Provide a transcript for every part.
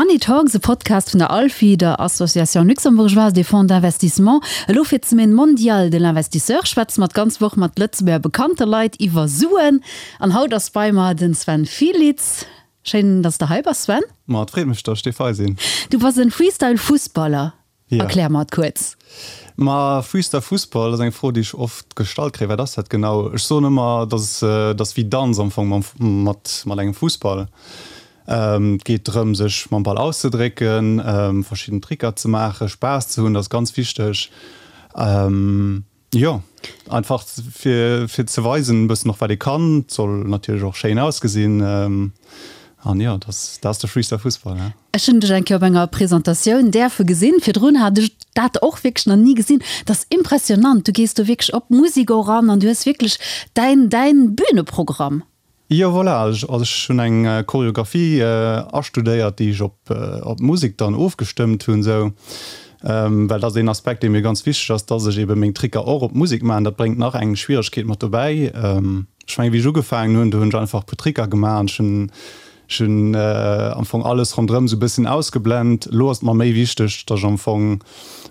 Money Talks, e Podcast vun der ALFI, der Association Luxembourgeoise des Fonds d'Investissement. Elo fir d'Semaine mondiale de l'investisseur schwätze mer d'ganz Woch mat Lëtzebuerger bekannte Leit iwwer Suen. An haut ass bei mer den Sven Fielitz. Schéin, dass de hei bass, Sven. Ma et freet mech, dass ech dierf hei sinn. Du bass en Freestyle-Fussballer. Erklär mer et kuerz. Ma Freestyle Fussball ass eng Fro, déi ech oft gestallt kréien. Wat ass dat genau? Ech soen ëmmer, dass et ass wéi Danz am Fong mam mat mat engem Fussball. Et geet drëm, sech mam Ball auszedrécken, verschidden Tricker ze maachen, Spaass ze hunn, dat ass ganz wichteg. Jo, einfach fir fir ze weisen e bëssen och wat ee kann. Et soll natierlech och schéin ausgesinn an jo, dat ass dat ass de Freestyle Fussball, ja. Ech hunn dech eng Kéier op enger Presentatioun däerfe gesinn. Virdrun hat ech dat och wierklech nach ni gesinn. Dat ass impressionant. Du gees do wierklech op d'Musek och an an du hues wierklech däin däin Büneprogramm. Jo voilà, also ech hunn eng Choreographie astudéiert, déi ech op op d'Musek dann ofgestëmmt hunn esou, well dat ass een Aspekt dee mir ganz wichteg ass, dass ech eben meng Tricker och op d'Musek maachen. Dat bréngt nach eng Schwieregkeet mat dobäi. Ech mengen wéi ech ugefaangen hunn, do hunn ech einfach e puer Tricker gemaach an ech hunn ech hunn am Fong alles ronderëm esou e bësschen ausgeblent. Elo ass et mer méi wichteg, dass ech am Fong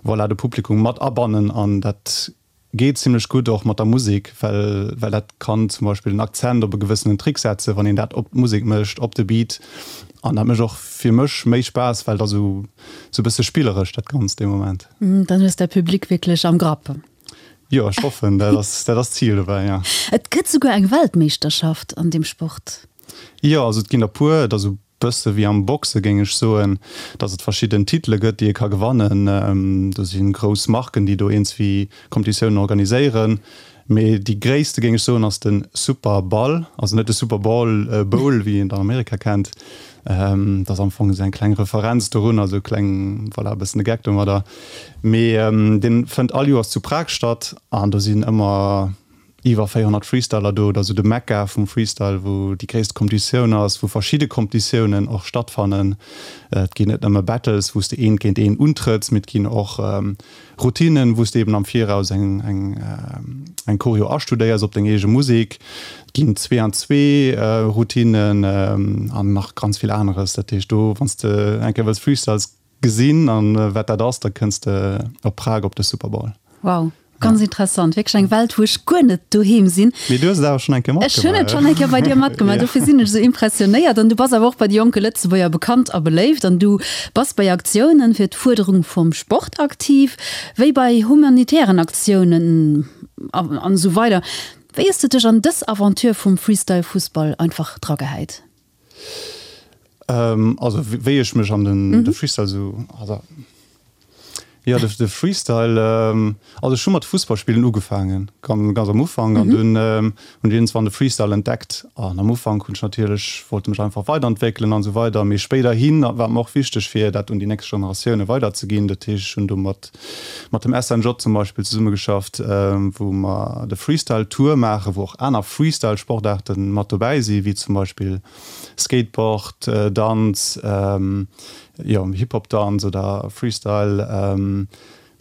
voilà de Publikum mat abannen an dat Geet zimlech gutt och mat der Musek, well well dat kann zum Beispill den Akzent op e gewëssenen Trick setzen, wann een dat op d'Musek mécht, op de Beat. An dat mécht och fir mech méi Spaass, well et ass esou esou e bësse spilleresch dat Ganzt dee Moment. Dann hues däi Public wierklech am Grapp. Jo, ech hoffen, dat ass dat ass d'Zil dobäi, jo. Et gëtt souguer eng Weltmeeschterschaft an deem Sport. Jo, also et ginn der puer. Et ass esou Bësse wéi am Boxe géing ech soen, dass et verschidden Titele gëtt, déi ee ka gewannen. Do si grouss Marken, déi do iergendswéi Competitiounen organiséieren. Mee déi gréisste géing ech soen ass de Super Ball, also net de Super Ball, Bowl, wéi een et an Amerika kennt. Dat ass am Fong esou eng kleng Referenz dorun, also e kleng, voilà, e bëssen e Geck domadder. Mee dee fënnt all Joers zu Prag statt an do sinn ëmmer iwwer 400 Freestyler do, dat ass esou de Mekka vum Freestyle, wou déi gréisste Competitioun ass, wou verschidde Competitiounen och stattfannen. Et ginn net nëmme Battles, wou s de eent géint een untrëtts, mee et ginn och Routinen, wou s de eben am Viraus eng eng eng Choreo astudéiers op deng eege Musek. Et ginn Zwee-an-Zwee Routinen an nach ganz vill aneres. Dat heescht do, wann s de eng Kéier wëlls Freestyles Gesinn an wat dat ass, da kënns de op Prag op de Super Bowl. Wow, ganz interessant, wierklech eng Welt wou ech guer net doheem sinn. Mee du hues et awer schonn eng Kéier matgemaach. Ech hunn et schonn eng Kéier bei dir matgemaach, dofir sinn ech esou impressionéiert. An du bass awer och bei de jonke Lëtzebuerger bekannt a beléift an du bass bei Aktiounen fir d'Fuerderung vum Sport aktiv, wéi bei humanitären Aktiounen an esou weider. Wéi hues de dech an dës Aventure vum Freestyle-Fussball einfach dragehäit? Also wéi ech mech an den de Freestyle sou, also jo de de Freestyle, also ech hu mat Fussballspillen ugefaangen, ganz ganz am Ufank an dunn hunn ech iergendswann de Freestyle entdeckt an am Ufank hunn ech natierlech, wollt mech einfach weiderentwéckelen an esou weider, mee spéiderhin war et mer och wichteg fir dat un déi nächst Generatioune weiderzeginn. Dat heescht ech hunn do mat mat dem SNJ zum Beispill zesummegeschafft, wou mer de Freestyle Tour maachen, wou och aner Freestyle Sportaarten mat dobäi si wéi zum Beispill Skateboard, Danz, jo Hip Hop Danz oder Freestyle,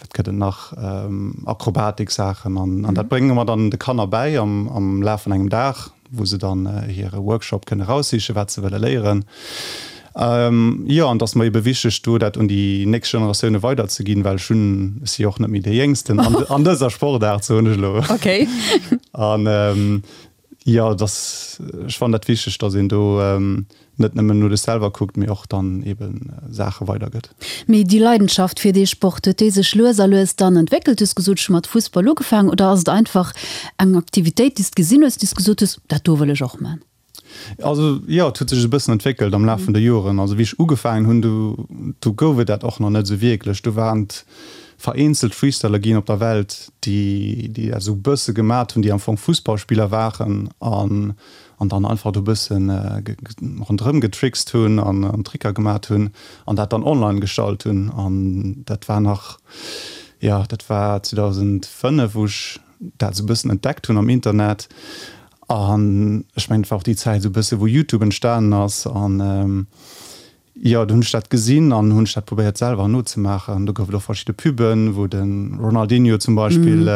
wat gëtt et nach, Akrobatik Saachen an dat brénge mer dann de Kanner bäi am Laf vun engem Dag. wou se dann hire Workshop kënne raussichen, wat se wëlle léieren. Jo, an et ass mer ebe wichteg, do dat un déi nächst Generatioune weiderzeginn, well ech hunn, ech si jo och net méi dee Jéngsten an, an dëser Sportaart, soen ech elo. Okay. An jo, et ass, ech fannen dat wichteg, datt een do net nëmmen no dech selwer kuckt, mee och dann eben Saache weidergëtt. Mee déi Leidenschaft fir dee Sport, huet déi sech lues a lues dann entwéckelt? Du hues gesot, ech hu mat Fussball ugefaangen. Oder ass et einfach eng Aktivitéit, déi s de gesinn hues, déi s gesot hues, dat do wëll ech och man? Also jo, et huet sech e bëssen entwéckelt am Laf vun de Joren. Also wéi ech ugefaangen hunn, do do gouf et dat och nach net esou wierklech. Do waren et vereenzelt Freestyler ginn op der Welt, déi déi dat esou e bësse gemat hunn, déi am Fong Fussballspiller waren an an dann einfach do bëssen ronderëm getrickst hunn an Tricker gemat hunn an dat dann online gestallt hunn. An dat war nach, jo, dat war 2005, wou ech dat esou bëssen entdeckt hunn am Internet. An ech mengen, et war och déi Zäit esou bësse wou Youtube entstanen ass an, Jo, do hunn ech dat gesinn an hunn ech dat probéiert selwer nozemaachen. Do gouf et och verschidde Puben, wou de Ronaldinho zum Beispill.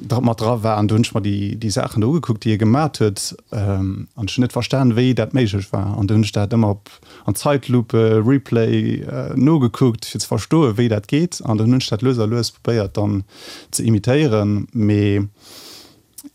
mat dra war an do hunn ech mer déi, déi Saachen do ugekuckt, déi e gemat huet an ech hunn net verstan, wéi dat méiglech war an du hunn ech dat ëmmer op an Zeitlupe, Replay nogekuckt, fir ze verstoen, wéi dat geet an dann hunn ech dat lues a lues probéiert dann ze imitéieren, mee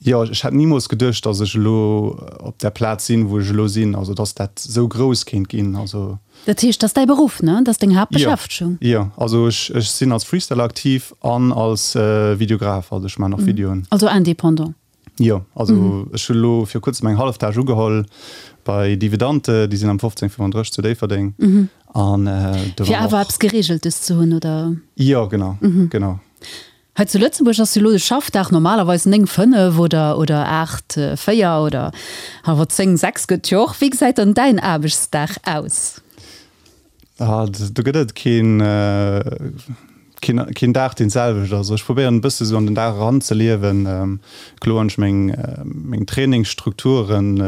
jo, ech hätt nimools geduecht, dass ech elo op där Plaz sinn, wou ech elo sinn, also dass dat esou grouss kéint ginn, also. Dat heescht, dat ass däi Beruff, ne? Dat ass deng Haaptbeschäftegung? Jo, also ech ech sinn als Freestyler aktiv an als Videograf, also ech maachen och Videoen. Also indépendant? Jo, also ech hu elo viru kuerzem eng Halleftage ugeholl bei Dividante, déi sinn am 1535 zu Déifferdeng an do war och. Fir awer eppes Gereegeltes ze hunn, oder? Jo, genau, genau. Hei zu Lëtzebuerg ass jo elo de Schaffdag normalerweis 9, 5 oder oder 8, 4 oder awer 10, 6 gëtt jo och. Wéi gesäit dann däin Aarbechtsdag aus? Ah, do gëtt et keen, keen, keen Dag deen d'selwecht ass. Ech probéieren e bësse sou an den Dag eran ze liewen. Kloer hunn ech meng, meng Trainingsstrukturen.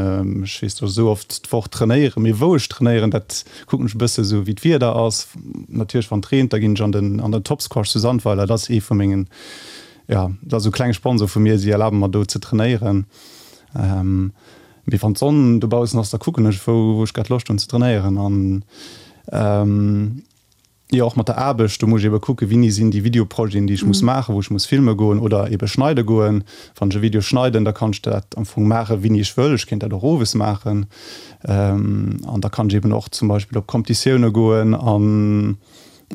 Ech weess, datt ech esou oft d'Woch trainéieren, mee wou ech trainéieren, dat Kucken ech e bësse sou wéi d'Wieder ass. Natierlech wann et reent, da ginn ech an den an den Topsquash zu Sandweiler. Dat ass ee vu mengen, jo, dat ass esou klenge Sponsor vu mir. Si erlabe mer do ze trainéieren. Mee wann d'Sonn dobaussen ass, da kucken ech wou wou ech grad Loscht hunn ze trainéieren an. Jo, och mat der Aarbecht, do muss ech ebe kucken, wéini sinn déi Videoprojeten, déi ech muss maachen, wou ech muss filme goen oder ebe schneide goen. Wann ech e Video schneiden, da kann ech dat am Fong maachen, wéini ech wëll. Ech kéint dat och owes maachen. An da kann ech eben och zum Beispill op Competitioune goen an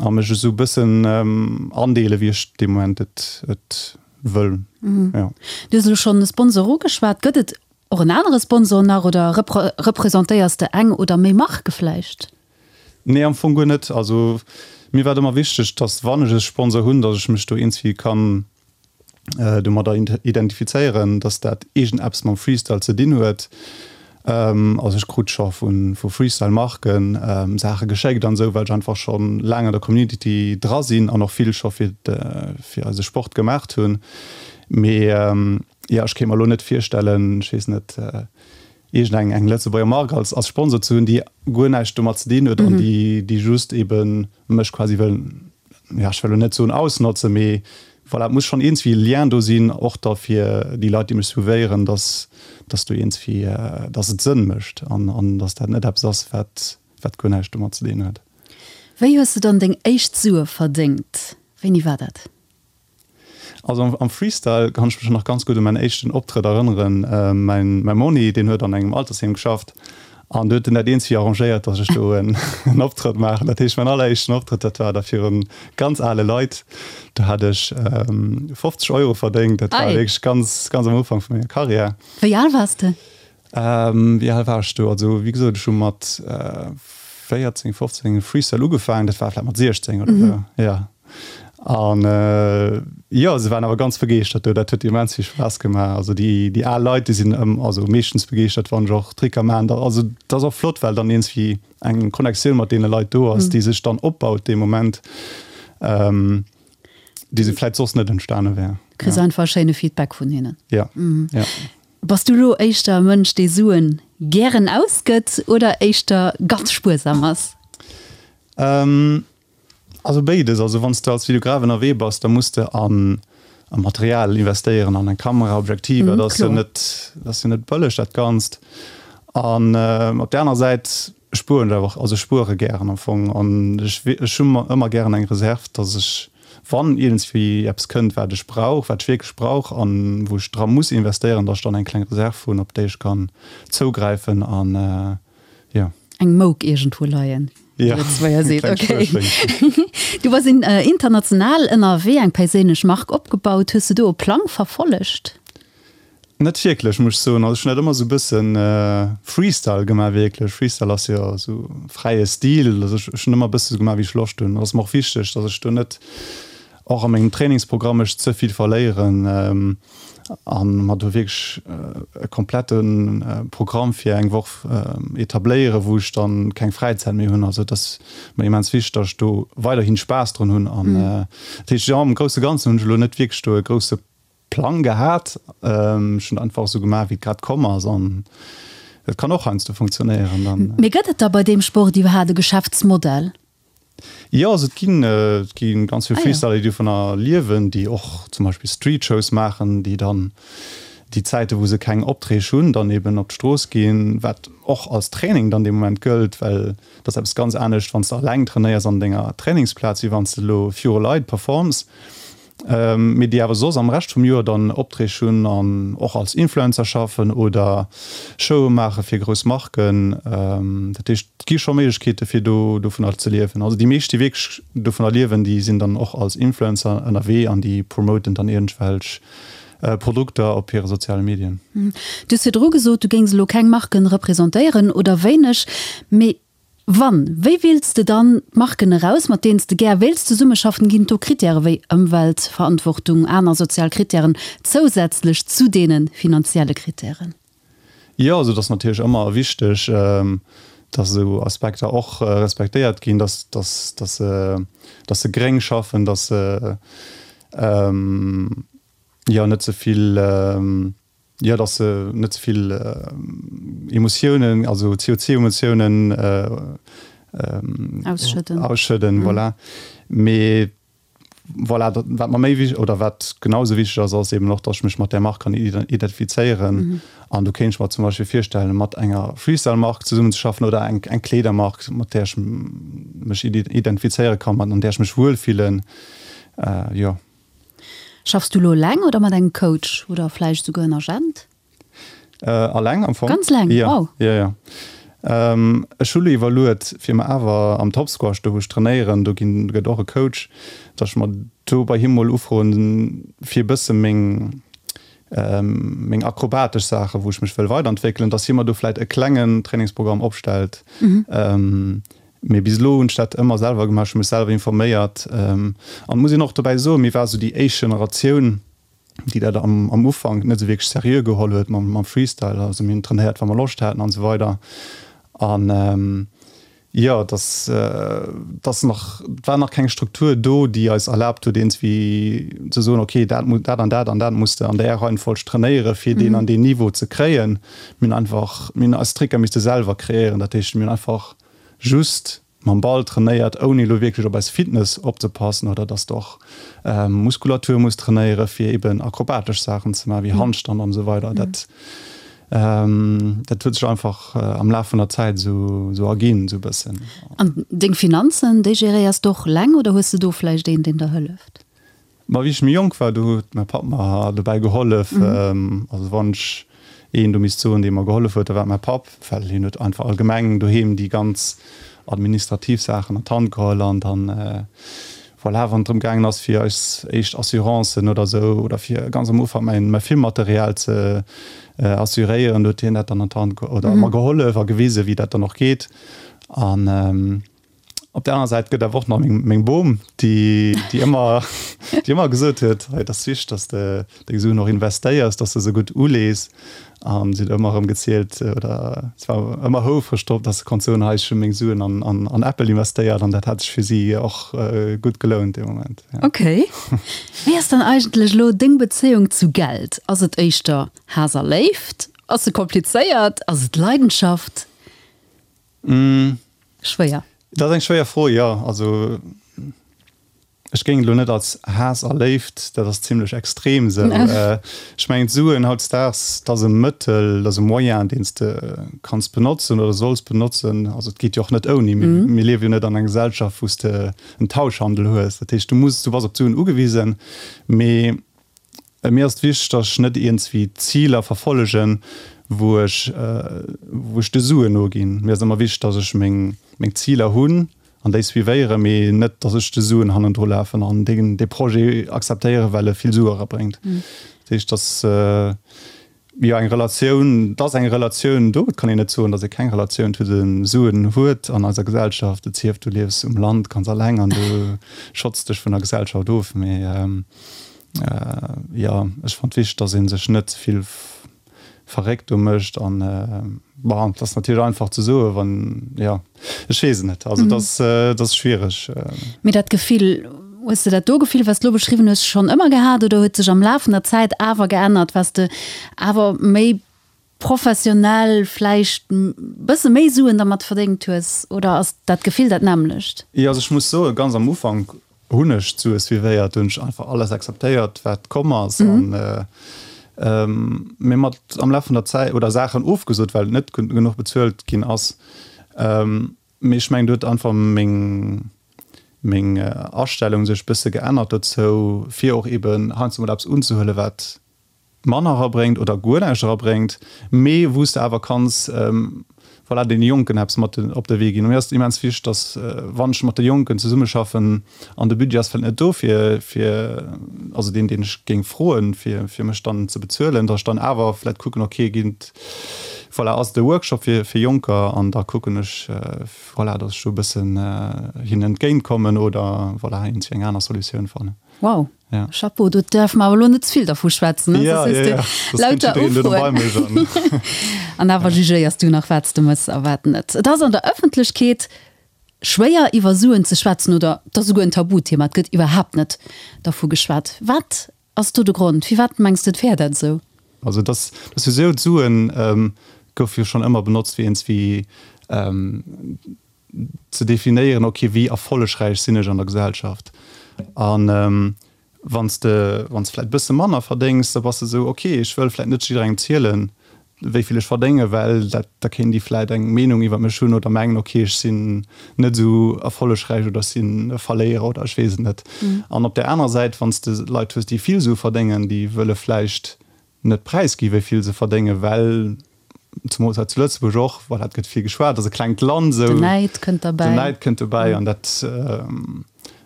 a mech esou e bëssen andeelen, wéi ech dee Moment et et wëll. Jo. Du hues elo schonn e Sponsor ugeschwat. Gëtt et och en anere Sponsor nach oder representéiers de eng oder méi Marke vläicht? Nee, am Fong guer net. Also mir war et ëmmer wichteg, dass wann ech e Sponsor hunn, dass ech mech do iergendwéi kann domadder identifizéieren, dass dat iergendeppes mam Freestyle ze dinn huet. Also ech krut scho vu Freestyle-Marken Saache geschéckt an esou, well ech einfach scho laang an der Community dra sinn an och vill scho fir fir eise Sport gemaacht hunn. Mee jo, ech kéint mer elo net virstellen, ech weess net, iergend eng eng Lëtzebuerger Mark als als Sponsor ze hunn, déi guer näischt domat ze dinn huet an déi déi just ebe mech quasi wëll, ja ech wëll elo net soen ausnotzen, mee voilà, et muss schonn iergendswéi e Lien do sinn, och da fir déi Leit, déi mech suivéieren, dass dass do iergendswéi, dass et Sënn mécht an an dass dat net eppes ass, wat wat guer näischt domat ze dinn huet. Wéi hues de dann deng éischt Sue verdéngt? Wéini war dat? Also am Freestyle kann ech mech nach ganz gutt u mäin éischten Optrëtt erënneren. Mäin mäi Monni, deen huet an engem Altersheem geschafft an do huet en dat eenzevi arrangéiert, datt ech do en Optrëtt maachen. Dat heescht, mäin alleréischten Optrëtt, dat war da virun ganz ale Leit. Do hat ech 50 Euro verdéngt. Dat war wierklech ganz, ganz am Ufank vu menger Karriär. Wéi al waars de? Wéi al war ech do? Also wéi gesot, ech hu mat 14, 15 Freestyle ugefaangen. Dat war vläicht mat 16 oder esou, jo. An jo, se waren awer ganz begeeschtert do. Dat huet immens vill Spaass gemaach. Also déi, déi al Leit, déi sinn ëm, also meeschtens begeeschtert, wann ech och Tricker maachen. Da, also dat ass och flott, well dann iergendwéi eng Connectioun mat deene Leit do ass, déi sech dann opbaut dee Moment, déi se vläicht soss net entstane wär. Kriss einfach e schéine Feedback vun hinnen. Jo, jo. Bass du elo éischter e Mënsch, dee Suen gären ausgëtt oder éischter ganz spuersam ass? Also béides. Also wann s de als Videograf ënnerwee bass, da muss de an a Material investéieren, an eng Kamera, Objektiver, dat ass jo net, dat ass jo net bëlleg dat Ganzt. An op där aner Säit spueren ech awer och, also ech spuere gären am Fong an ech ech hu ëmmer gären eng Reserv, datt ech wann iergendswéi eppes kënnt wat ech brauch, wat ech wierklech brauch an wou ech dra muss investéieren, datt ech dann eng kleng Reserv hunn op déi ech kann zougräifen an jo. Eng Mouk iergendwou leien, wéi de Lëtzebuerger seet. Okay. Du bass international ënnerwee, eng perséinlech Mark opgebaut. Hues de do e Plang verfollegt? Net wierklech, muss ech soen. Also ech hunn dat ëmmer esou e bëssen Freestyle gemaach wierklech. Freestyle ass jo esou fräie Stil. Also ech hunn ëmmer e bësse sou gemaach wéi ech Loscht hunn. Et ass mer och wichteg, datt ech do net och a mengem Trainingsprogramm mech ze vill verléieren a mer do wierklech e komplette Programm fir eng Woch etabléieren, wou ech dann keng Fräizäit méi hunn. Also et ass mer immens wichteg, datt ech do weiderhin Spaass drun hunn. An dat heescht, jo, am grousse Ganzen hunn ech elo net wierklech do e grousse Plang gehat. Ech hunn einfach esou gemaach, wéi et grad komm ass an et kann och heiansdo funktionéieren dann. Mee gëtt et da bei deem Sport iwwerhaat e Geschäftsmodell? Jo, also et ginn, et gi ganz vill Freestyler, déi dovunner liewen, déi och zum Beispill Streetshows maachen, déi dann déi Zäite wou se keng Opträg hunn, dann eben op d'Strooss ginn, wat och als Training dann dee Moment gëllt, well et ass eppes ganz anescht, wann s de alleng trainéiers an denger Trainingsplaz, wéi wann s de elo viru Leit performs. Mee déi awer soss am Rescht vum Joer dann Opträg hunn an och als Influencer schaffen oder Showe maache fir grouss Marken. Dat heescht, et gi scho Méiglechkeete fir do dovunner ze liewen. Also déi meescht, déi wierklech dovunner liewen, déi sinn dann och als Influencer ënnerwee an déi promoten dann iergendwelch Produkter op hire soziale Medien. Du hues virdru gesot, du géings elo keng Marken representéieren oder wéineg, mee Wann, wéi wiels de dann d'Marken eraus, mat deenen s de gär wéilts zesummeschaffen? Ginn et do Krittäre wéi Ëmweltverantwortung, aner sozial Krittären zousätzlech zu deene finanzielle Krittären? Jo, also et ass natierlech ëmmer wichteg, dass esou Aspekter och respektéiert ginn, dass, dass, dass se, dass se gréng schaffen, dass se, jo, net ze vill, Jo, dass se net ze vill Emotiounen, also CO2-Emotiounen ausschëdden. Ausschëdden, voilà. Mee voilà, dat, wat mer méi wich-, oder wat genau esou wichteg ass, ass eben och, dass ech mech mat där Mark kann identifizéieren. An do kéint ech mer zum Beispill virstellen, mat enger Freestyle-Mark zesummenzeschaffen oder eng, eng Kleedermark, mat där ech mech identifizéiere kann, mat, an där ech mech wuelfillen. Jo. Schaffs du lo eleng oder mat engem Coach oder vläicht esouguer en Agent? Alleng am Fong. Ganz eleng? Ja, wow. Ja, ja. Ech hu lo iwwerluet, fir mer awer am Top Squash, do wou ech trainéieren, do ginn, gëtt och e Coach, datt ech mer do bei him mol ufroen, fir e bësse meng, meng akrobatesch Saachen, wou ech mech wëll weiderentwéckelen, datt hie mer do vläit e klengen Trainingsprogramm opstellt. Mee bis elo hunn ech dat ëmmer selwer gemaach, ech hu mech selwer informéiert. An et muss een och dobäi soen, mir ware sou déi éischt Generatioun, déi dat am Ufank net esou wierklech seriö geholl huet mam Freestyle. Also mir hunn trainéiert, wa mer Loscht haten an esou weider. An jo, et ass, et ass nach, et war nach keng Struktur do, déi eis erlaabt huet, iergendwéi ze soen, okay, dat dat an dat an dat muss de an där Reihenfolg trainéieren, fir deen an deen Niveau ze kréien. Mir hunn einfach, mir hunn eis Tricker misste selwer kreéieren. Dat heescht, mir hunn einfach just mam Ball trainéiert, ouni elo wierklech op eis Fitness opzepassen oder dass de och Muskulatur muss trainéiere fir eben akrobatesch Saachen ze maachen, wéi Handstand an esou weider. Dat dat huet sech einfach am Laf vun der Zäit esou esou erginn, esou e bëssen. An deng Finanzen, déi geréiers de och eleng oder hues de do vläicht een, deen der hëlleft? Ma wéi ech méi jonk war, do huet mäi Papp mer dobäi gehollef. Also wann ech een do misst soen, dee mer gehollef huet, da war et mäi Papp, well hien huet einfach allgemeng doheem déi ganz administrativ Saachen an d'Hand geholl an dann, voilà, wann et drëm gaangen ass, fir eis éischt Assurancen oder esou oder fir ganz am Ufank mäin, mäi Filmmaterial ze assuréieren, do huet hien dat dann an d'Hand oder mer gehollef a gewisen, wéi dat dann och geet. An Op der aner Säit gëtt awer och nach meng, meng Bom, déi, déi ëmmer, déi ëmmer gesot huet, hei, et ass wichteg, dass de deng Suen och investéiers, dass de se gutt ulees. An si huet ëmmer erëm gezielt oder si war ëmmer houfreg drop, dass se konnt soen, hei, ech hu meng Suen an, an, an Apple investéiert an dat hat sech fir si och gutt gelount dee Moment. Ja. Okay. Wéi ass dann eigentlech elo deng Bezéiung zu Geld? Ass et éischter Haass a Léift? Ass se komplizéiert? Ass et Leidenschaft? Schwéier. Dat ass eng schwéier Fro, jo. Also ech géing et elo net als Haass a Léift, dat ass zimlech extrem esou. Ech mengen d'Suen hautdesdaags, dat ass e Mëttel, dat ass e Moyen, deen s de kanns benotzen oder solls benotzen. Also et geet jo och net ouni. Mir liewe jo net an enger Gesellschaft, wou s de en Tauschhandel hues. Dat heescht, du muss, du bass op d'Suen ugewisen. Mee Mir ass et wichteg, dass ech net iergendswéi Ziler verfollegen, wou ech, wou ech de Suen noginn. Mir ass ëmmer wichteg, dass ech meng, meng Ziler hunn an déi suivéieren, mee net, dass ech de Suen hannendru lafen an deen, dee Projet akzeptéieren, well e vill Sue erabréngt. Dat heescht, dass, jo, eng Relatioun, et ass eng Relatioun do. Et kann een net soen, dass ee keng Relatioun zu de Suen huet an eiser Gesellschaft. Et sief, du liefs um Land ganz alleng an du schotts dech vun der Gesellschaft of, mee, Jo, ech fannt wichteg, dass een sech net ze vill verréckt do mécht an bon, et ass natierlech einfach ze soen, wann, jo, ech weess et net, also et ass, et ass schwiereg. Mee dat Gefill, hues de dat do Gefill, wat s de elo beschriwwen hues, schonn ëmmer gehat oder huet sech am Laf vun der Zäit awer geännert, waars de awer méi. professionell vläicht bësse méi Suen dermat verdéngt hues? Oder ass dat Gefill dat nämmlecht? Jo, also ech muss soen, ganz am Ufank hunn ech d'Sue suivéiert, do hunn ech einfach alles akzeptéiert, wat komm ass. An mee mat am Laf vun der Zäit, oder Saachen ofgesot, well et net genuch bezuelt ginn ass. Mee ech mengen, do huet einfach meng meng Astellung sech bësse geännert dozou, fir och eben heiansdo mol eppes unzehuelen, wat manner erabréngt oder guer näischt erabréngt, mee wou s de awer kanns, voilà, deene Jonken eppes mat op de Wee ginn. Mir ass et immens wichteg, dass, wann ech mat de Jonken zesummeschaffen an de Budget ass vläicht net do fir, fir, also deen, deen ech géing froen, fir, fir mech dann ze bezuelen, dass ech dann awer vläicht kucken, okay, ginn et, voilà, ass et e Workshop fir, fir Jonker an da kucken ech, voilà, dass ech do e bëssen hinnen entgéintkommen oder, voilà, iergendwéi eng aner Solutioun fannen. Wow. Ja. Chapeau, do däerfe mer awer elo net ze vill dervu schwätzen, ne? Ja, Soss ja, hues du ja. Soss kënnt lauter jiddereen duerno bei Ufroen. mech an. An awer jugéiers du nach, wat s de mëss a wat net. Et ass an der Ëffentlechkeet schwéier, iwwer Suen ze schwätzen oder et ass esouguer en Tabuthema, et gëtt iwwerhaapt net dervu geschwat. Wat ass do de Grond? Firwat mengs de, et wär dat esou? Also et ass, et ass jo esou, d'Suen goufe jo schonn ëmmer benotzt fir iergendswéi ze definéieren, ok, wéi erfollegräich sinn ech an der Gesellschaft? An wann s de, wann s de vläicht e bësse manner verdéngs, da bass de esou, ok, ech wëll vläicht net jidderengem zielen, wéi vill ech verdéngen, well dat, da kéint déi vläicht eng Meenung iwwer mech hunn oder mengen, ok, ech sinn net esou erfollegräich oder ech sinn e Verléierer oder ech weess et net. An op där anerer Säit, wann s de Leit hues, déi vill Sue verdéngen, déi wëlle vläicht net präisgi wéi vill se verdéngen, well zemools hei zu Lëtzebuerg och, voilà, et gëtt vill geschwat, et ass e klengt Land esou. Den Näid kënnt derbäi. Den Näid kënnt dobäi an dat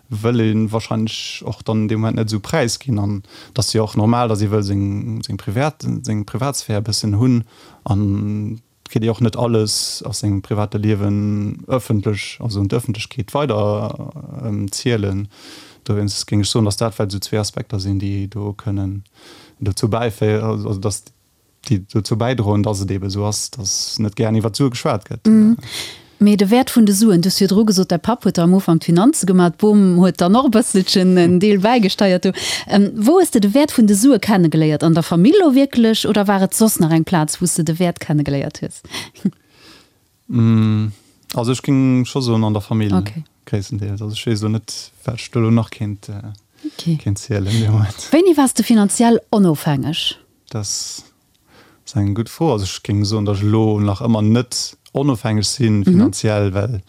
wëll ee wahrscheinlech och dann an deem Moment net esou präisginn. An et ass jo och normal, datt ee wëll seng, seng Privat, seng Privatsphär e bëssen hunn an et kritt ee och net alles aus sengem private Liewen ëffentlech, also un d'Ëffentlechkeet weider zielen. Dowéinst géing ech soen, datt dat vläicht esou zwee Aspekter sinn, déi do kënnen dozou bäiféieren, also datt déi dozou bäidroen, datt et eebe esou ass, datt net gären iwwer d'Sue geschwat gëtt. Mee de Wäert vun de Suen, du hues virdru gesot, däi Papp huet der am Ufank d'Finanze gemaach, d'Bom huet dann och e bësselchen en Deel bäigesteiert do. Wou hues de de Wäert vun de Sue kennegeléiert? An der Famill elo wierklech oder war et soss nach eng Plaz, wou s de de Wäert kennegeléiert hues? Also ech géing scho soen an der Famill gréisstendeels. Also ech weess elo net, wat ech do elo nach kéint zielen dee Moment. Wéini waars de finanziell onofhängeg? Dat ass eng gutt Fro. Also ech géing soen, datt ech elo nach ëmmer net onofhängeg si finanziell, well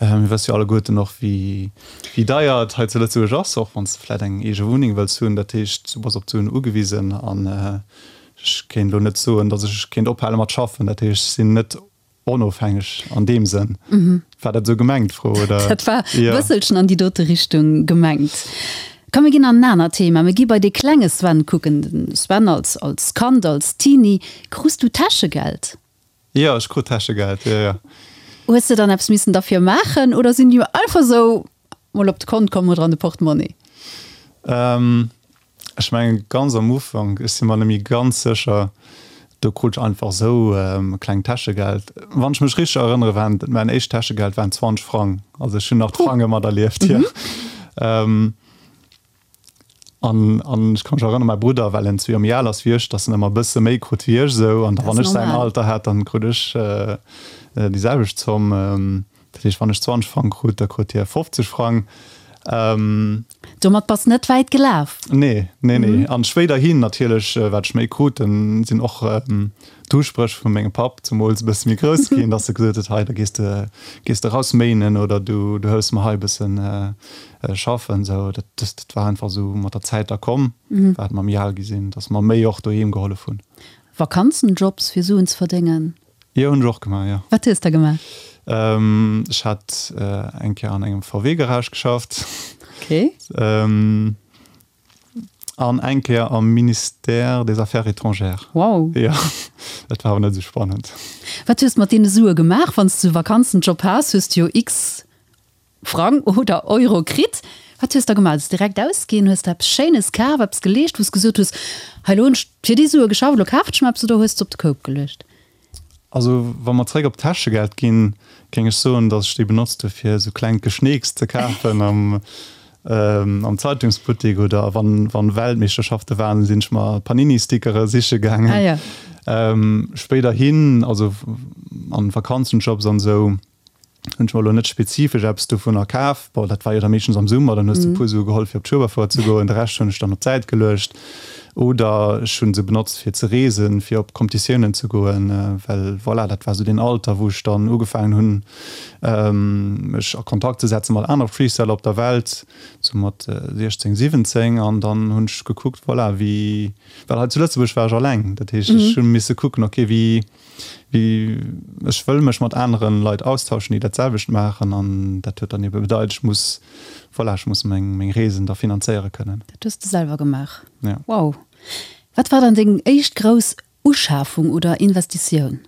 mir wësse jo alleguerten och, wéi deier et hei zu Lëtzebuerg ass, och wann s de vläicht eng eege Wunneng wëlls hunn. Dat heescht, du bass op d'Suen ugewisen an Ech kéint elo net soen, datt ech kéint ophale mat schaffen. Dat heescht, ech sinn net onofhängeg an deem Sënn. War dat esou gemengt, d'Fro, oder? Dat war e bësselchen an déi dote Richtung gemengt. Komm, mir ginn an en anert Thema. Mir gi bei dee klenge Sven kucken. De Sven als, als Kand, als Teenie. Krus du Täschegeld? Jo, ech krut Täschegeld, jo, jo. Hues de dann eppes missen derfir maachen oder sinn déi einfach esou mol op de Kont komm oder an de Portemonnaie? Ech mengen ganz am Ufank, ech si mer net méi ganz sécher, do krut ech einfach esou e klengt Täschegeld. Wann ech mech richteg erënnere waren mäin éischt Täschegeld waren 20 Frang, also ech hunn nach d'Frange materlieft, jo. An an ech ka mech erënneren, mäi Brudder, well en zwee Joer méi al ass wéi ech, datt en ëmmer e bësse méi krut wéi ech esou. An da wann ech säin Alter hat, dann krut ech déi selwecht Zomm. Dat heescht, wann ech 20 Frang krut, da krut hie 50 Frang. Domat bass net wäit gelaf. Nee, nee, nee. An spéiderhin natierlech, wat ech méi krut, dann sinn och d'Uspréch vu mengem Papp zemools e bësse méi grouss ginn, dass e gesot huet, hei, da gees de, gees de raus méinen oder du, du hëllefs mer hei e bëssen schaffen. Sou, dat, dat war einfach esou mat der Zäit da komm, wat mer méi al gi sinn, dass mer méi och doheem gehollef hunn. Vakanzenjobs fir Suen ze verdéngen? Jo, hunn ech och gemaach, jo. Wat hues de gemaach? Ech hat eng Kéier an engem VW-Garage geschafft. Okay. An eng Kéier am Ministère des Affaires étrangères. Wow. Jo, dat war awer net esou spannend. Wat hues de mat deene Sue gemaach? Wann s de Vakanzenjob has, hues de jo x. Frang oder Euro kritt. Wat hues de da gemaach? Hues de direkt ausginn? Hues de eppes Schéines kaf, eppes geleescht, wou s gesot hues, hei elo hunn ech fir déi Sue geschafft, elo kafen ech mer eppes, oder hues de se op de Koup geluecht? Also wa mer zréck op d'Täschegeld ginn, géing ech soen, datt ech déi benotzt hu fir esou klengt Geschneeks ze kafen am am Zeitungsbuttek oder wann wann Weltmeeschterschafte waren, sinn ech mer Panini-Stickere siche gaangen. Ah ja. Spéiderhin, also an Vakanzenjobs an esou, hunn ech mer elo net spezifesch eppes dovunner kaf. Bon, dat war jo da meeschtens am Summer, dann hues de e puer Sue geholl fir op d'Schueberfouer ze goen, de Rescht hunn ech dann op d'Säit geluecht oder ech hunn se benotzt fir ze reesen, fir op Competitiounen ze goen, well voilà, dat war esou deen Alter wou ech dann ugefaangen hunn mech a Kontakt ze setze mat anere Freestyler op der Welt, sou mat 16, 17 an dann hunn ech gekuckt, voilà, wéi, well hei zu Lëtzebuerg war ech alleng, dat heescht ech hu misse kucken, okay, wéi Wéi ech wëll mech mat aneren Leit austauschen, déi dat selwecht maachen an dat huet dann ebe bedeit, ech muss, voilà, ech muss meng meng Reesen da finanzéiere kënnen. Dat hues de selwer gemaach? Ja. Wow. Wat war dann deng éischt grouss Uschafung oder Investitioun?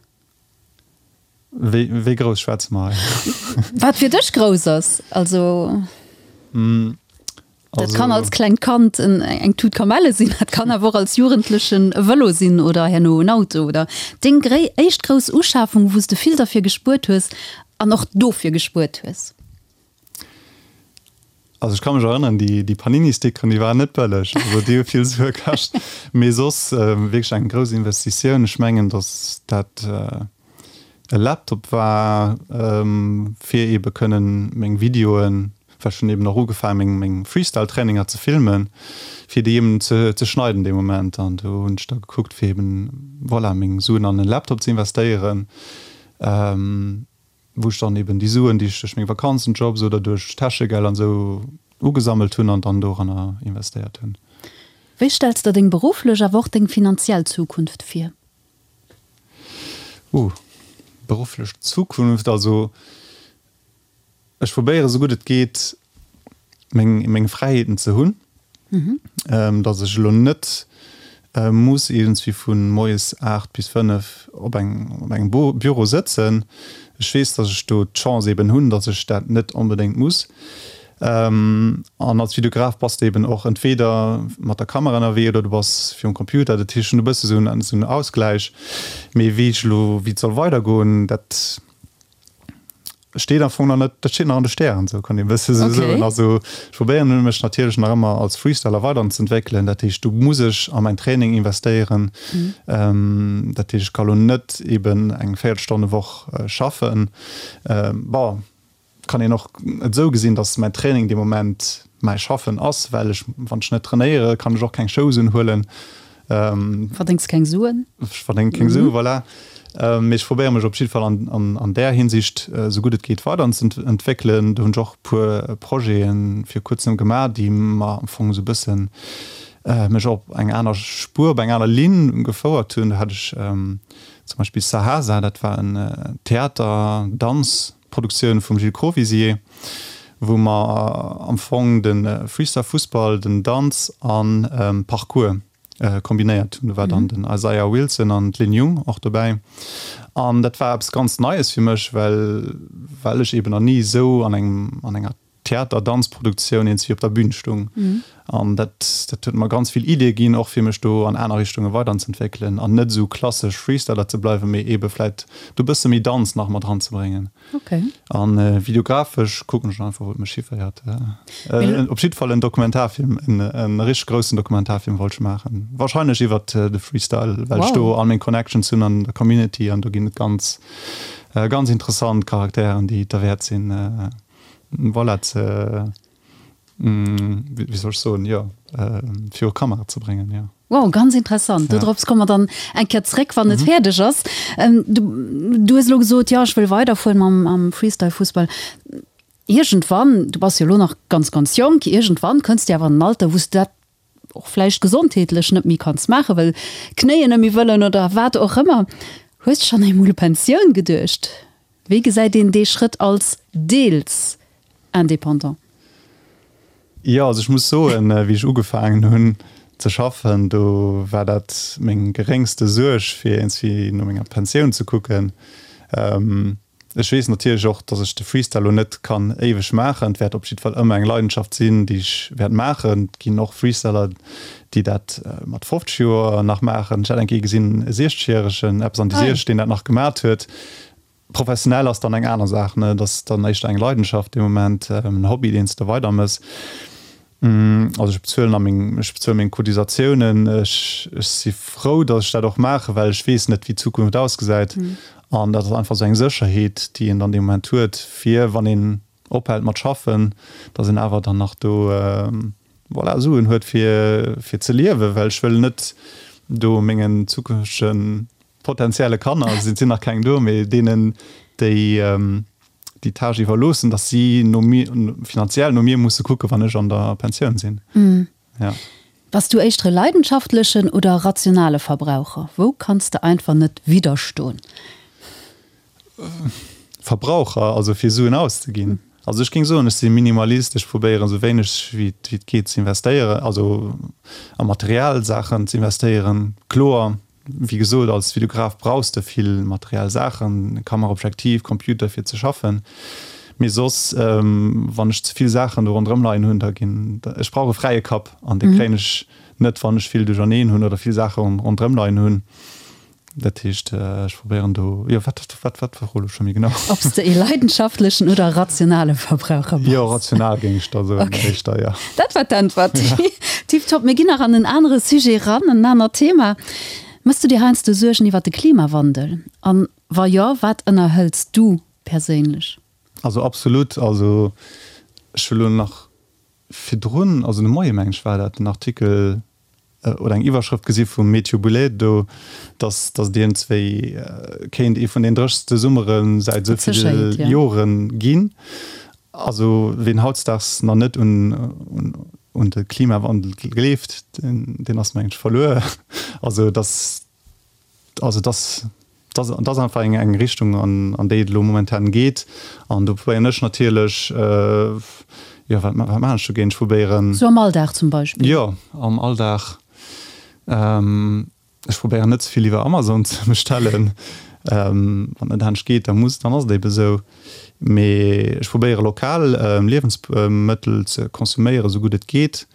Wéi wéi grouss schwätze mer hei? Wat fir dech grouss ass, also. Dat kann als klengt Kand eng Tut Kamelle sinn, dat kann awer och als Jugendlechen e Vëlo sinn oder herno en Auto oder deng éischt grouss Uschafung, wou s de vill derfir gespuert hues an och dofir gespuert hues. Also ech ka mech erënneren, déi Panini-Stickeren, déi waren net bëlleg, also déi hu vill Sue kascht. Mee soss wierklech eng grouss Investitioun. Ech mengen, datt dat e Laptop war, fir ebe kënnen meng Videoen, well ech hunn eben och ugefaangen, meng meng Freestyle-Traininger ze filmen, fir déi eben ze ze schneiden dee Moment. An do hunn ech da gekuckt, fir eben, voilà, meng Suen an en Laptop ze investéieren, wou ech dann eben déi Suen, déi ech duerch meng Vakanzenjobs oder duerch Täschegeld an esou ugesammelt hunn, an dann doranner investéiert hunn. Wéi stells der deng berufflech, awer och deng finanziell Zukunft vir? Uh, berufflech Zukunft, also ech probéiere sou gutt et geet meng meng Fräiheeten ze hunn, datt ech elo net muss iergendswéi vu moies 8 bis 5 op eng op engem Büro sëtzen. Ech weess, datt ech do d'Chance eben hunn, datt ech dat net onbedéngt muss. An als Videograf bass de eben och entweder mat der Kamera ënnerwee oder du bass virum Computer. Dat heescht, ech hunn e bësse sou en Ausgläich. Mee wéi ech elo, wéi et soll weidergoen, dat steet am Fong nach net, dat steet nach an de Stären, sou kann ee bësse sou soen. Also ech probéieren mech natierlech nach ëmmer als Freestyler weiderzentwéckelen. Dat heescht, do muss ech a mäin Training investéieren. Dat heescht, ech ka lo net eben eng Véierelstonnewoch schaffen. Bon. Kann een och et esou gesinn, dass mäin Training dee Moment mäi Schaffen ass, well ech, wann ech net trainéiere, kann ech och keng Shows unhuelen. Verdéngs keng Suen. Ech verdénge keng Suen, voilà. Mee ech probéiere mech op jidde Fall an där Hinsicht esou gutt et geet weiderzeentwéckelen. Do hunn ech och e puer Projete vir kuerzem gemaach, déi mer am Fong esou e bëssen mech op eng aner Spuer, op eng aner Linn gefouert hunn. Do hat ech zum Beispill Sahasa, dat war en Theater-, Danz-, Produktioun vum Gilles Crovisier, wou mer am Fong de Freestyle Fussball, den Danz an Parkour kombinéiert hunn. Do war dann den Isaiah Wilson an d'Lynn Jung och dobäi. An dat war eppes ganz Neies fir mech, well well ech eben nach ni esou an engem an enger Theater-Danz-Produktioun eens wéi op der Bühn stung. An dat dat huet mer ganz vill Iddie ginn, och fir mech do an aner Richtunge weiderzentwéckelen an net esou klassesch Freestyler ze bleiwen, mee eebe vläit do e bësse méi Danz nach mat eranzebréngen. Okay. An videografesch kucken ech einfach, wou et mech hiféiert. Op jiddwer Fall en Dokumentarfilm, en e richteg groussen Dokumentarfilm wollt ech maachen. Warscheinlech iwwert de Freestyle, well ech do all meng Connections hunn an der Community an do ginn et ganz ganz interessant Charakteren, déi et derwäert sinn, voilà, ze, wéi soll ech soen, jo, viru Kamera ze bréngen, jo. Wow, ganz interessant. Ja. Dodrops komme mer dann eng Kéier zréck, wann et fäerdeg ass. Du, du hues elo gesot, jo, ech wëll weiderfueren mam, mam Freestyle-Fussball. Iergendwann, du bass jo elo nach ganz, ganz jonk, iergendwann kënns de awer an en Alter, wou s de dat och vläicht gesondheetlech net méi kanns maachen, well d'Knéien net méi wëllen oder wat och ëmmer. Hues de schonn eemol u Pensioun geduecht? Wéi gesäit een dee Schrëtt als deels Indépendant? Jo, also ech muss soen, wéi ech ugefaangen hunn ze schaffen, do war dat meng geréngste Suerg, fir iergendwéi no menger Pensioun ze kucken. Ech weess natierlech och, dass ech de Freestyle elo net kann éiweg maachen. Et wäert op jiddwer Fall ëmmer eng Leidenschaft sinn, déi ech wäert maachen. Et ginn och Freestyler, déi dat mat 50 Joer nach maachen. Ech hat eng Kéier gesinn, e 60 järegen, eppes an déi 60, deen dat nach gemat huet. Professionell ass dann eng aner Saach, ne? Et ass dann éischter eng Leidenschaft dee Moment, en Hobby, deen s de weidermëss. Also ech bezuelen a meng, ech bezuele meng Cotisatiounen. Ech, ech si frou, datt ech dat och maachen, well ech weess net, wéi d'Zukunft ausgesäit. An dat ass einfach esou eng Sécherheet, déi een dann dee Moment huet, fir wann een ophält mat schaffen, datt een awer dann nach do, voilà, Suen huet fir, fir ze liewen. Well ech wëll net do mengen zukünftege potenzielle Kanner, et sinn nach keng do, mee deenen, déi, déi Tâche iwwerloossen, dass si no mir, finanziell no mir musse kucken, wann ech an der Pensioun sinn. Ja. Bass du éischter e leidenschaftlechen oder rationale Verbraucher? Wou kanns de einfach net widderstoen? Verbraucher, also fir Suen auszeginn. Also ech géing soen, ech si Minimalist, ech probéieren esou wéineg wéi et geet ze investéieren, also a materiell Saachen ze investéieren. Kloer, Wéi gesot, als Videograf brauchs de vill materiell Saachen, Kamera, Objektiv, Computer fir ze schaffen. Mee soss, wann ech ze vill Saachen do ronderëm leien hunn, da ginn, ech brauch e fräie Kapp an dee kréien ech net, wann ech vill duercherneen hunn oder vill Saache ronderëm leien hunn. Dat heescht, ech probéieren do, jo, wat, wat, wat war elo scho méi genau? Ob s de ee leidenschaftlechen oder rationale Verbraucher bass? Jo, rational géing ech da soen, éischter, jo. Dat war d'Äntwert. Tiptop. Mir ginn nach an en anere Sujet eran, en anert Thema. Mëss du dir heiansdo Suergen iwwer de Klimawandel? An wa jo, wat ënnerhëls du perséinlech? Also absolut. Also ech hu lo nach virdrun, also de Moie meng ech war dat, en Artikel oder eng Iwwerschrëft gesi vum Mathieu Boulay do, dass dass et iergendswéi kéint ee vun den dréchste Summere säit esou ville Jore ginn. Also ween hautdesdaags nach net un un de Klimawandel gleeft, deen ass mengen ech verluer. Also dass also dass dass dat ass einfach eng eng Richtung an an déi et elo momentan geet. An do probéieren ech natierlech, jo wat wat maachen ech dogéint? Ech probéieren. Sou am Alldag zum Beispill? Jo, am Alldag. Ech probéieren net ze vill iwwer Amazon ze bestellen. Wann et net anescht geet, da muss, dann ass et ebe sou. Mee ech probéiere lokal Liewensmëttel ze konsuméieren, esou gutt et geet.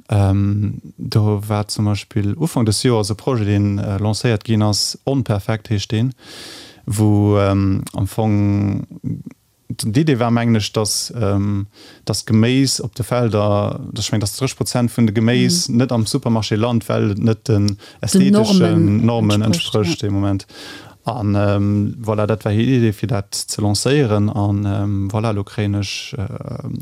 Do war zum Beispill Ufank des Joers e Projet, deen lancéiert ginn ass, Onperfekt heescht deen, wou am Fong d'Idee war, mengen ech, datt datt d'Geméis op de Felder, ech mengen, datt 30 Prozent vun de Geméis net am Supermarché lant, well et net den ästheteschen Normen entsprécht dee Moment. An voilà, dat war hir Idee fir dat ze lancéieren. An voilà, elo kréien ech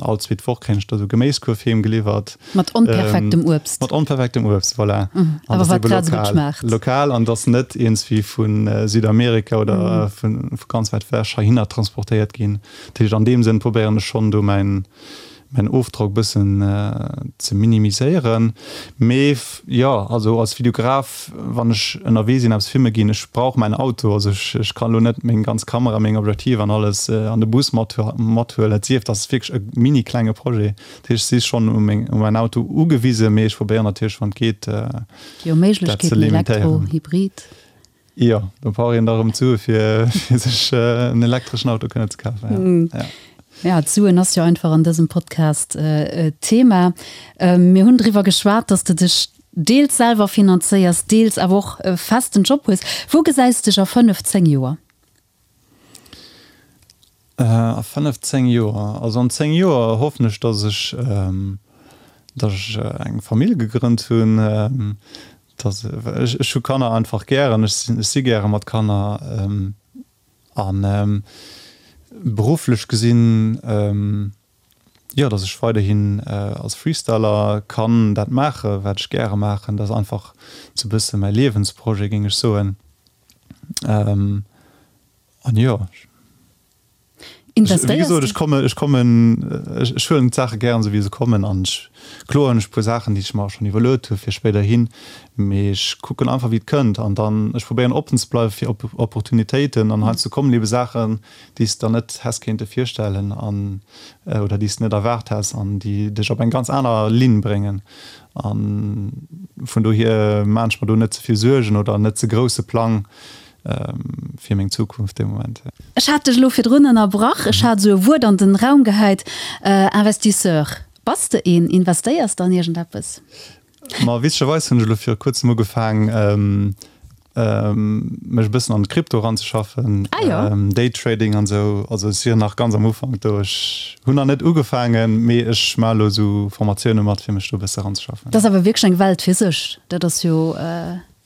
all zweet Woch kréien ech da sou Geméiskuerf heem geliwwert. Mat onperfektem Uebst. Mat onperfektem Uebst, voilà. An Awer wat grad esou gutt schmaacht. Lokal an dass net iergendswéi vu Südamerika oder vu ganz wäit ewech heihinner transportéiert ginn. Dat heescht an deem Sënn probéieren ech schonn do mäin mäin Ofdrock bëssen ze minimiséieren. Mee jo, also als Videograf, wann ech ënnerwee sinn, eppes filme ginn, ech brauch mäin Auto. Also ech ech kann elo net meng ganz Kamera, meng Objektiv an alles an de Bus mat mathuelen. Et sief, et ass wierklech e mini klenge Projet. Dat heescht, ech si schonn u meng u mäin Auto ugewisen, mee ech probéieren natierlech, wann et geet, Jo, dat ze Méiglechkeeten, Elektro, limitéieren. Hybrid. Jo, do brauch een da rëm d'Sue fir sech en elektreschen Auto kënnen ze kafen. Ja. Ja, d'Suen ass jo einfach an dësem Podcast Thema. Mir hunn driwwer geschwat, dass de dech deels selwer finanzéiers, deels awer och e festen Job hues. Wou gesäis dech a 5, 10 Joer? A 5, 10 Joer? Also an 10 Joer hoffen ech, dass ech, dass ech eng Famill gegrënnt hunn, dass ech, ech hu Kanner einfach gären, ech sinn, ech si gäre mat Kanner an berufflech gesinn, jo, dass ech weiderhin als Freestyler kann dat maache wat ech gäre maachen. Dat ass einfach sou e bësse mäi Liewensprojet, géing ech soen. An jo, wéi gesot, ech kommen, ech kommen, ech huelen d'Saache gären esou wéi se kommen an ech, kloer hunn ech e puer Saachen, déi ech mer schonn iwwerluet hu fir spéiderhin, mee ech kucken einfach wéi et kënnt an dann, ech probéieren oppen ze bleiwe fir Opportunitéiten an heiansdo kommen ebe Saachen, déi s de der net häss kéinte virstellen an, oder déi s de net erwaart häss an déi dech op eng ganz aner Linn bréngen a vun dohier maan ech mer do net ze vill Suergen oder net ze grousse Plang. fir meng Zukunft dee Moment. Ech hat dech elo virdrun ënnerbrach. Ech hat esou e Wuert an den Raum gehäit, Investisseur. Bass de een? Investéiers de an iergendeppes? Ma witzegerweis hunn ech elo viru kuerzem ugefaang. mech e bëssen an d'Krypto eranzeschaffen, ah, jo. Daytrading an esou. Also ech sinn nach ganz am Ufank do. Ech hunn nach net ugefaangen, mee ech maache elo esou Formatioune mat, fir mech do e bësse eranzeschaffen. Dat ass awer wierklech eng Welt fir sech. Dat ass jo.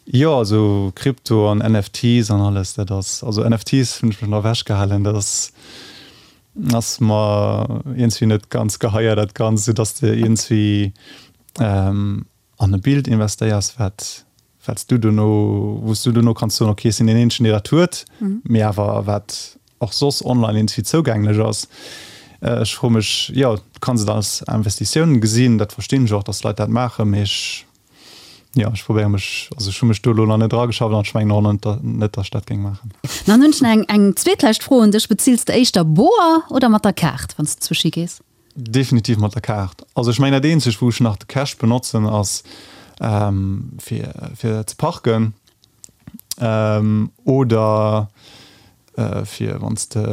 Jo, also Krypto an NFTs an alles, dat ass, also NFTs hunn ech mech nach ewechgehalen, dat ass, ass mer iergendwéi net ganz geheier, dat Ganzt, esou dass de iergendwéi an e Bild investéiers, wat, wat s du dono, wou s du dono kanns soen, okay, ech sinn deen eenzegen, dee dat huet, mee awer wat och soss online iergendwéi zougänglech ass. Ech froe mech, jo, du kanns et als Investitioun gesinn, dat verstinn ech och, dass Leit dat maachen, mee ech, jo, ech probéiere mech, also ech hu mech do elo nach net erageschafft an ech mengen och net, net, dass ech dat géing maachen. Dann hunn ech nach eng, eng zweetlescht Fro un dech, Bezills de éischter boer oder mat der Kaart, wann s de zwëschi gees? Definitiv mat der Kaart. Also ech mengen dat eenzegt wou ech nach de Cash benotzen ass fir fir ze parken oder fir wann s de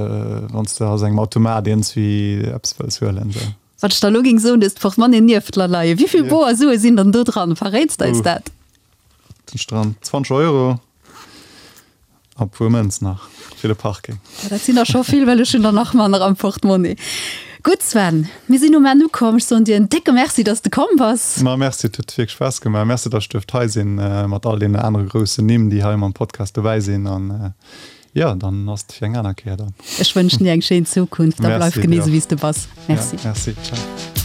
wann s de aus engem Automat iergendswéi eppes wëlls huelen esou. Wat ech der elo géing soen, du hues d'Portmonnaie nieft der leien. Wéivill boer Sue sinn dann do dran? Verréits de eis dat? Sinn dran 20 Euro. A puer Mënz nach fir de Parking. Dat sinn der scho vill, well ech hunn der nach manner am Portmonni. Gutt Sven, mir sinn um Enn ukomm. Ech soen dir en décke Merci, dass de komm bass. Ma Merci, et huet wierklech Spaass gemaach. Merci, dass ech duerft hei sinn mat all deenen anere groussen Nimm, déi hei mam Podcast dobäi sinn. An jo, dann ass et fir eng aner Kéier dann. Ech wënschen dir eng schéin Zukunft a bleif genee esou wéi s de bass. Merci. Merci, ciao.